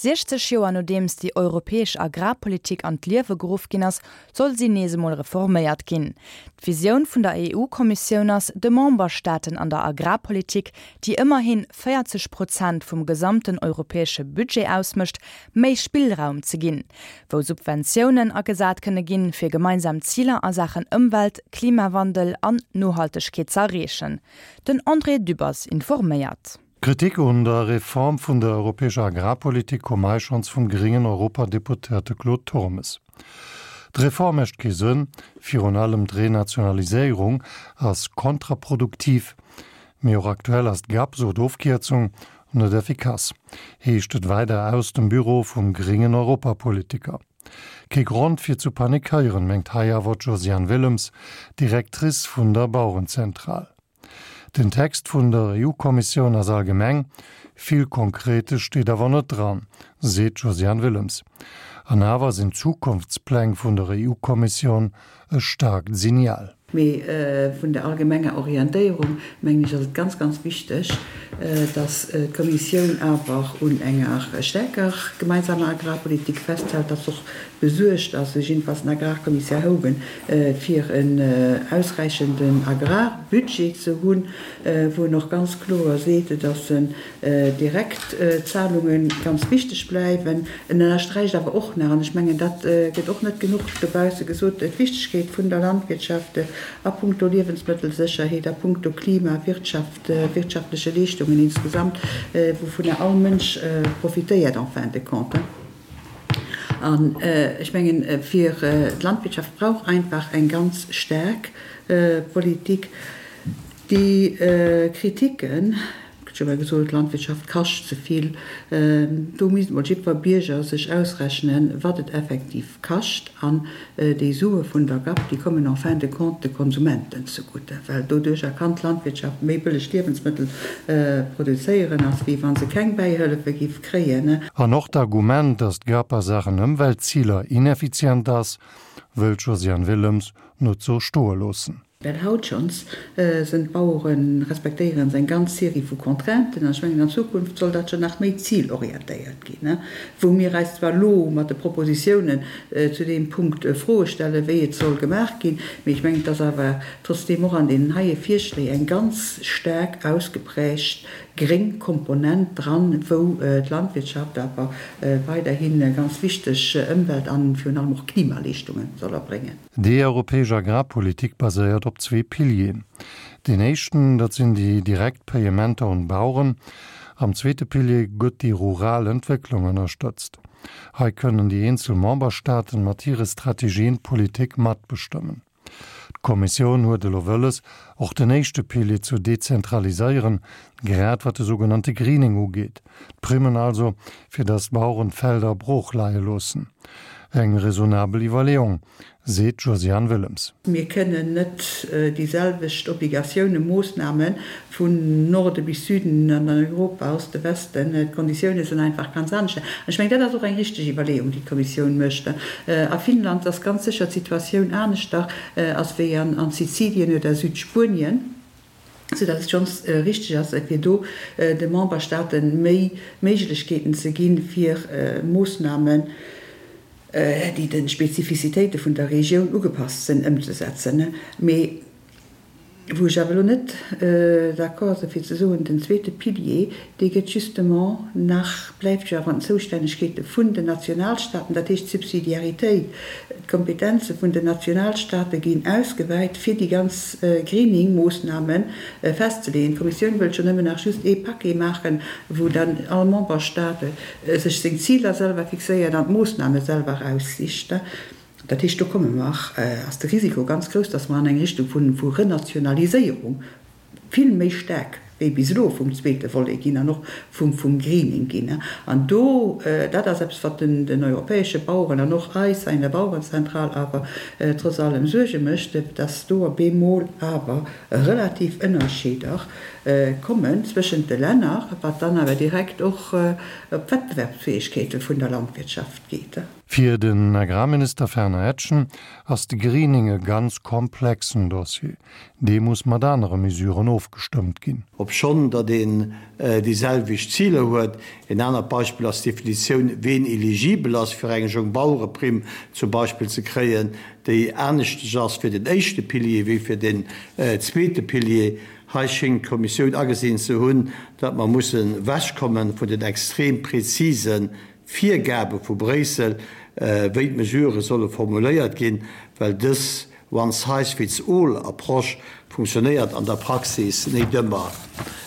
60 Joer nodeems déi europäesch Agrarpolitik an d'Liewe geruff ginn ass, soll si nees emol reforméiert ginn. D'Visioun vun der EU-Kommissioun ass, de Memberstaaten an der Agrarpolitik, déi ëmmerhi 40 Prozent vum gesamten europäesche Budget ausmécht, méi Spillraum ze ginn, wou Subventiounen agesat kënne ginn, fir gemeinsam Ziler a Saachen Ëmwelt, Klimawandel an Nohaltegkeet ze erreechen. Den André Dübbers informéiert. D'Kritik un der Reform vun der europäescher Agrarpolitik koum hei schonns vum gréngen Europadeputéierte Claude Turmes. D'Reform mécht kee Sënn, virun allem d'Renationaliséierung ass kontraproduktiv. Mee och aktuell ass d'GAP, sou d'Ofkierzung, net effikass, heescht et weider aus dem Büro vum gréngen Europapolitiker. Kee Grond fir zu panikéieren, mengt hei awer d'Josiane Willems, Directrice vun der Bauerenzentral. Den Text vun der EU-Kommissioun ass allgemeng, vill Konkretes steet awer net dran, seet d'Josiane Willems. An awer sinn d'Zukunftspläng vun der EU-Kommissioun e staarkt Signal. Mee vun der allgemenger Orientéierung, mengen ech, ass et ganz, ganz wichteg, dass d'Kommissioun awer un enger staarker gemeinsamer Agrarpolitik festhält, dass och besuergt ass, sou jiddefalls den Agrarkommissär Hogan, fir en ausräichenden Agrarbudget ze hunn, wou en och ganz kloer seet, dass Direktzahlunge ganz wichteg bleiwen. En ënnersträicht awer och nach, an ech mengen, dat gëtt och net genuch dobausse gesot, d'Wichtegkeet vun der Landwirtschaft a puncto Liewensmëttelsécherheet, a puncto Klima, Wirtschaft, wirtschaftleche Leeschtungen insgesamt, wouvunner all Mënsch profitéiert en fin de compte. An ech mengen, fir d'Landwirtschaft brauch einfach eng ganz staark Politik. Déi Kritiken, ech hu jo gesot, d'Landwirtschaft kascht ze vill, do misst emol jiddwer Bierger sech ausrechnen, wat et effektiv kascht. An déi Sue vun der GAP, déi kommen en fin de compte de Konsumenten zegutte, well doduercher kann d'Landwirtschaft méi bëlleg Liewensmëttel produzéieren, als wéi wa se keng Bäihëllefe giff kréien. An och d'Argument, datt d'GAP a Saachen Ëmweltziler ineffizient ass, wëll d'Josiane Willems net sou stoe loossen. Well haut schonns sënn d'Baueren, respektéieren se eng ganz Serie vu Contrainten, an ech mengen an Zukunft soll dat jo nach méi zilorientéiert ginn, wou mir eis zwar elo mat de Propositiounen zu deem Punkt Froe stellen, wéi et soll gemaach ginn, mee ech mengen, et ass awer trotzdeem och an deenen heie Virschléi eng ganz staark ausgeprägt gréng Komponent dran, wou d'Landwirtschaft awer weiderhi ganz wichteg Ëmwelt an virun allem och Klimaleeschtunge soll erbréngen. Déi europäesch Agrarpolitik baséiert op zwee Pilieren. Deen éischten, dat sinn déi direkt Payementer un d'Baueren. Am zweete Pilier gëtt déi rural Entwécklung ënnerstëtzt. Hei kënnen déi eenzel Memberstaaten mat hire Strategien d'Politik matbestëmmen. D'Kommissioun huet elo wëlles, och den éischte Pilier zu dezentraliséieren, grad wat de sougenannte Greening ugeet, d'Primmen also, fir datt d'Baueren d'Felder brooch leie loossen. Eng raisonnabel Iwwerleeung, seet d'Josiane Willems. Mir kënnen net déi selwecht Obligatiounen, Moossname vun Norde bis Süden an an Europa, Oste, Westen, d'Konditioune sinn einfach ganz anescht. An ech mengen, dat ass och eng richteg Iwwerleeung, déi d'Kommissioun mécht. A Finnland ass ganz sécher d'Situatioun aneschter ass wéi an Sizilien oder Südspuenien. sou datt et schonns richteg ass, fir do de Memberstaate méi Méiglechkeeten ze ginn, fir Moossnamen, déi de Spezifizitéite vun der Regioun ugepasst sinn, ëmzesetzen. Mee wou ech awer elo net d'accord sinn, fir ze soen, den zweete Pilier, dee gëtt justement nach, bleift jo awer an den Zoustännegkeete vun den Nationalstaaten, dat heescht d'Subsidiaritéit, d'Kompetenze vun den Nationalstaate ginn ausgewäit, fir déi ganz Greening-Moossname festzeleeën. D'Kommissioun wëllt jo nëmmen nach just ee Paquet maachen, wou dann all Memberstaat sech seng Ziler selwer fixéiert an d'Moossname selwer eraussicht. Dat heescht, do komme mer, ass de Risiko ganz grouss, dass mer an eng Richtung vu Renationaliséierung vill méi staark wéi bis elo vum zweete Volet ginn an och vum Greening ginn. An do, dat ass eppes, wat den europäesche Baueren an och eis hei an der Bauerenzentral awer trotz allem Suerge mécht, dass do op eemol awer relativ Ënnerscheeder. kommen zwëschent de Länner, wat dann awer direkt och op d'Wettbewerbsfäegkeete vun der Landwirtschaft geet. Fir den Agrarminister Fernand Etgen ass de Greening e ganz komplexen Dossier. Dee muss mat anere Mesuren ofgestëmmt ginn. Obschonn datt een déi selwecht Ziler huet. Een anert Beispill ass d'Definitioun, ween eligibel ass fir eng Jongbauereprimm zum Beispill ze kréien, déi aneschtesch ass fir den éischte Pilier wéi fir den zweete Pilier. Hei schéngt d'Kommissioun agesinn ze hunn, datt mer mussen ewechkomme vun den extrem präzise Virgabe vu Bréissel, wéi d'Mesurë solle formuléiert ginn, well dës One-size-fits-all-Approche funktionéiert an der Praxis nét ëmmer.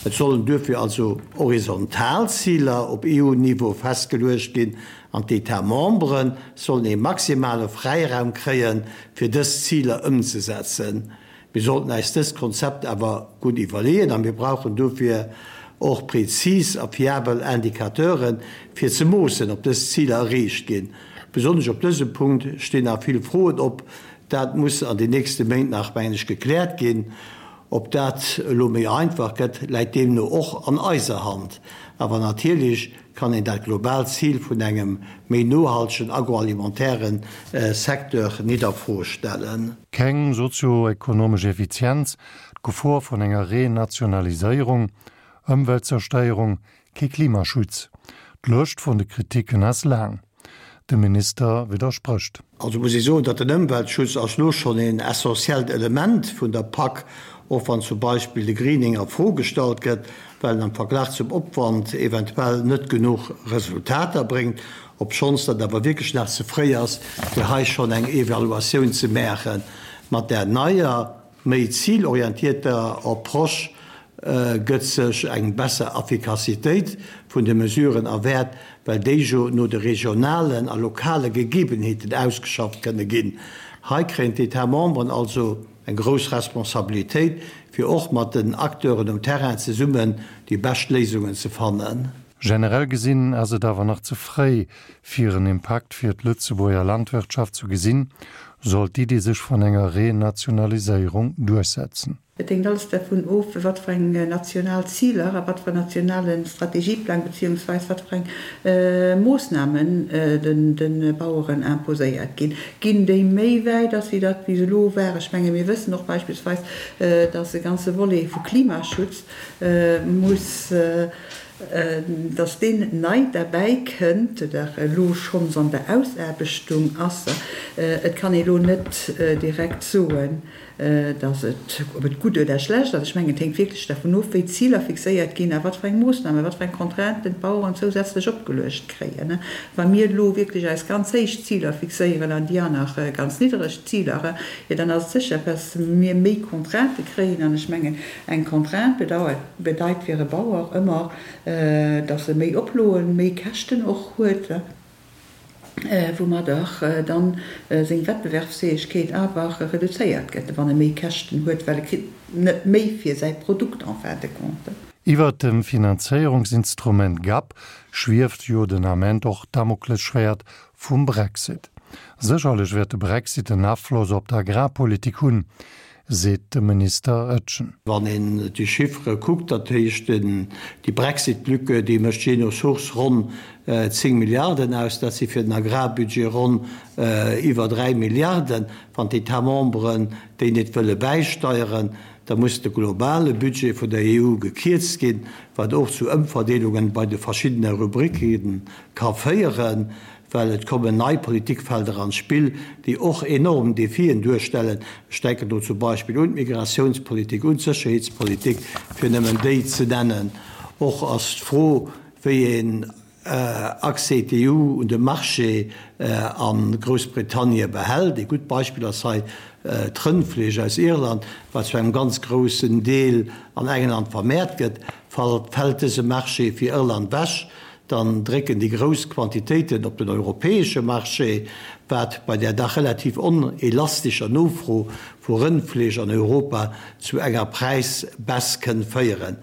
Et sollen duerfir also horizontal Ziler op EU-Niveau festgeluecht ginn an d'États membres sollen ee maximale Fräiraum kréien, fir dës Ziler ëmzesetzen. Mir sollten äis dëst Konzept awer gutt iwwerleeën a mir brauchen dofir och prezis a fiabel Indicateuren, fir ze moossen, ob dës Ziler erreecht ginn. Besonnesch op dësem Punkt stinn nach vill Froen op. Dat muss an den nächste Méint nach, mengen ech, gekläert ginn. Ob dat elo méi einfach gëtt, läit deemno och an eiser Hand. Awer natierlech kann een dat globaalt Zil vun engem méi nohaltegen agroalimentairen Secteur nit a Fro stellen. Keng sozio-ekonomesch Effizienz, d'Gefor vun enger Renationaliséierung, Ëmweltzerstéierung, kee Klimaschutz. D'Lëscht vun de Kritiken ass laang. De Minister widdersprécht. Also muss ee soen, datt den Ëmweltschutz ass lo schonn een essentiellt Element vun der Pak, och wann zum Beispill de Greening a Fro gestallt gëtt, well en am Verglach zum Opwand eventuell net genuch Resultater bréngt, obschonns dat awer wierklech nach ze fréi ass, fir hei schonn eng Evaluatioun ze maachen. Mat där neier, méi zilorientierter Approche gëtt sech eng besser Affikassitéit vun de Mesuren erwäert, well déi jo no de regionalen a lokale Gegebenheeten ausgeschafft kënne ginn. Hei kréien d'États membres also Eng grouss Responsabilitéit, fir och mat den Acteuren um Terrain zesummen déi bescht Léisungen ze fannen. Generell gesinn ass et awer nach ze fréi, fir en Impakt fir d'Lëtzebuerger Landwirtschaft zu gesinn, sollt d'Iddi sech vun enger Renationaliséierung duerchsetzen. Et hänkt alles dervun of, wat fir eng national Ziler a wat fir en nationale Strategieplang beziehungsweis wat fir eng Moossnamen de Baueren imposéiert ginn. Ginn déi méi wäit, ass wéi dat bis elo war? Ech menge mir wëssen och beispillsweis, dass e ganze Volet vu Klimaschutz muss, dass deen nei derbäi kënnt oder elo schonns an der Ausaarbechtung ass. Et kann ee elo net direkt soen, dass et, ob et gutt oder schlecht ass, ech mengen, et hänkt wierklech dervun of, wéi d'Ziler fixéiert ginn a wat fir eng Moossnamen, wat fir eng Contrainten d'Baueren zousätzlech opgeluecht kréien. Wa mir elo wierklech eis ganz héich Ziler fixéieren an déi aner ganz niddereg Ziler, jo dann ass et sécher, dass mir méi Contraintë kréien. An ech mengen, eng Contrainte bedauert, bedeit fir e Bauer ëmmer, dass e méi Oploen, méi Käschten och huet. woumadder dann seng Wettbewerbsfäegkeet awer reduzéiert gëtt, wann e méi Käschten huet, well e kritt net méi fir säi Produkt en fin de compte. Iwwert dem Finanzéierungsinstrument gap schwieft jo den Ament och d'Damoklesschwäert vum Brexit. Sécherlech wäert de Brexit en Afloss op d'Agrarpolitik hunn, seet de Minister Etgen. Wann een déi Chiffere kuckt, dat heescht déi Brexit-Lücke, déi mécht jee no Source ronn 10 Milliarden aus, dat si fir den Agrarbudget ronn iwwer 3 Milliarden. Wann d'États membres déi net wëlle bäisteieren, da muss de globale Budget vun der EU gekierzt ginn, wat och zu Ëmverdeelungen bei de verschiddene Rubricke ka féieren. Well et kommen nei Politikfelder an d'Spill, déi och enorm Defien duerstellen. Ech denken do zum Beispill un d'Migratiounspolitik, un d'Sécherheetspolitik, fir nëmmen déi ze nennen. Och ass d'Fro, wéi een Accès d'EU un de Marché a Groussbritannie behält. Ee gutt Beispill ass hei d'Rëndfleesch aus Irland, wat zu engem ganz groussen Deel an England vermäert gëtt. Fält dëse Marché fir Irland wech, dann drécken déi grouss Quantitéiten op den europäesche Marché, wat bei där dach relativ onelastescher Nofro vu Rëndfleesch an Europa zu enger Präisbaisse kënn féieren.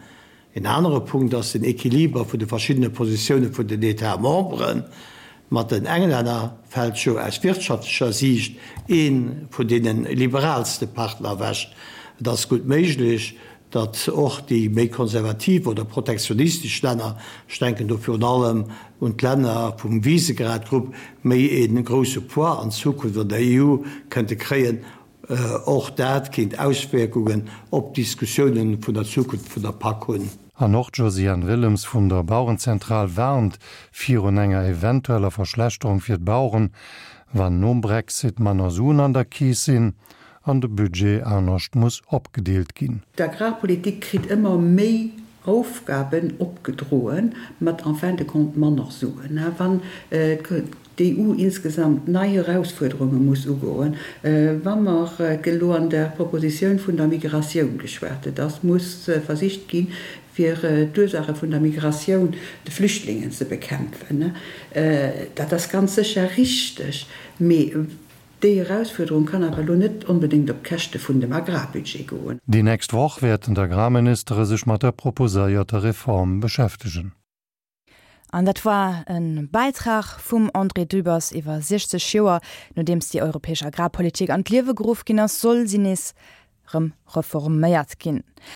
En anere Punkt ass den Equiliber vun de verschiddene Positioune vun den États membres. Mat den Englänner fält jo aus wirtschaftlecher Siicht ee vun deene liberaalste Partner ewech. Et ass gutt méiglech, Datt och déi méi konservativ oder protektionistesch Länner, ech denken do virun allem un d'Länner vum Visegrad-Grupp, méi ee grousse Poids an Zukunft an der EU kënnte kréien, och dat kéint Auswierkungen op d'Diskussiounen vun der Zukunft vun der Pak hunn. An och d'Josiane Willems vun der Bauerenzentral warnt virun enger eventueller Verschlechterung fir d'Baueren, wann nom Brexit manner Suen an der Keess sinn an de Budget anescht muss opgedeelt ginn. D'Agrarpolitik kritt ëmmer méi Aufgaben opgedroen, mat en fin de compte manner Suen. Wann d'EU insgesamt nei Erausfuerderunge muss ugoen, wa mer elo an der Propositioun vun der Migratioun geschwat, et ass muss versicht ginn, fir d'Ursaache vun der Migratioun, de Flüchtlingen, ze bekämpfen, dat ass ganz sécher richteg, mee Déi Erausfuerderung kann awer elo net onbedéngt op d'Käschte vun dem Agrarbudget goen. Déi nächst Woch wäerten d'Agrarministere sech mat der proposéierter Reform beschäftegen. An dat war e Bäitrag vum André Dübbers. Iwwer 60 Joer nodeems déi europäesch Agrarpolitik an d'Liewe geruff ginn ass, soll si nees rëm reforméiert ginn.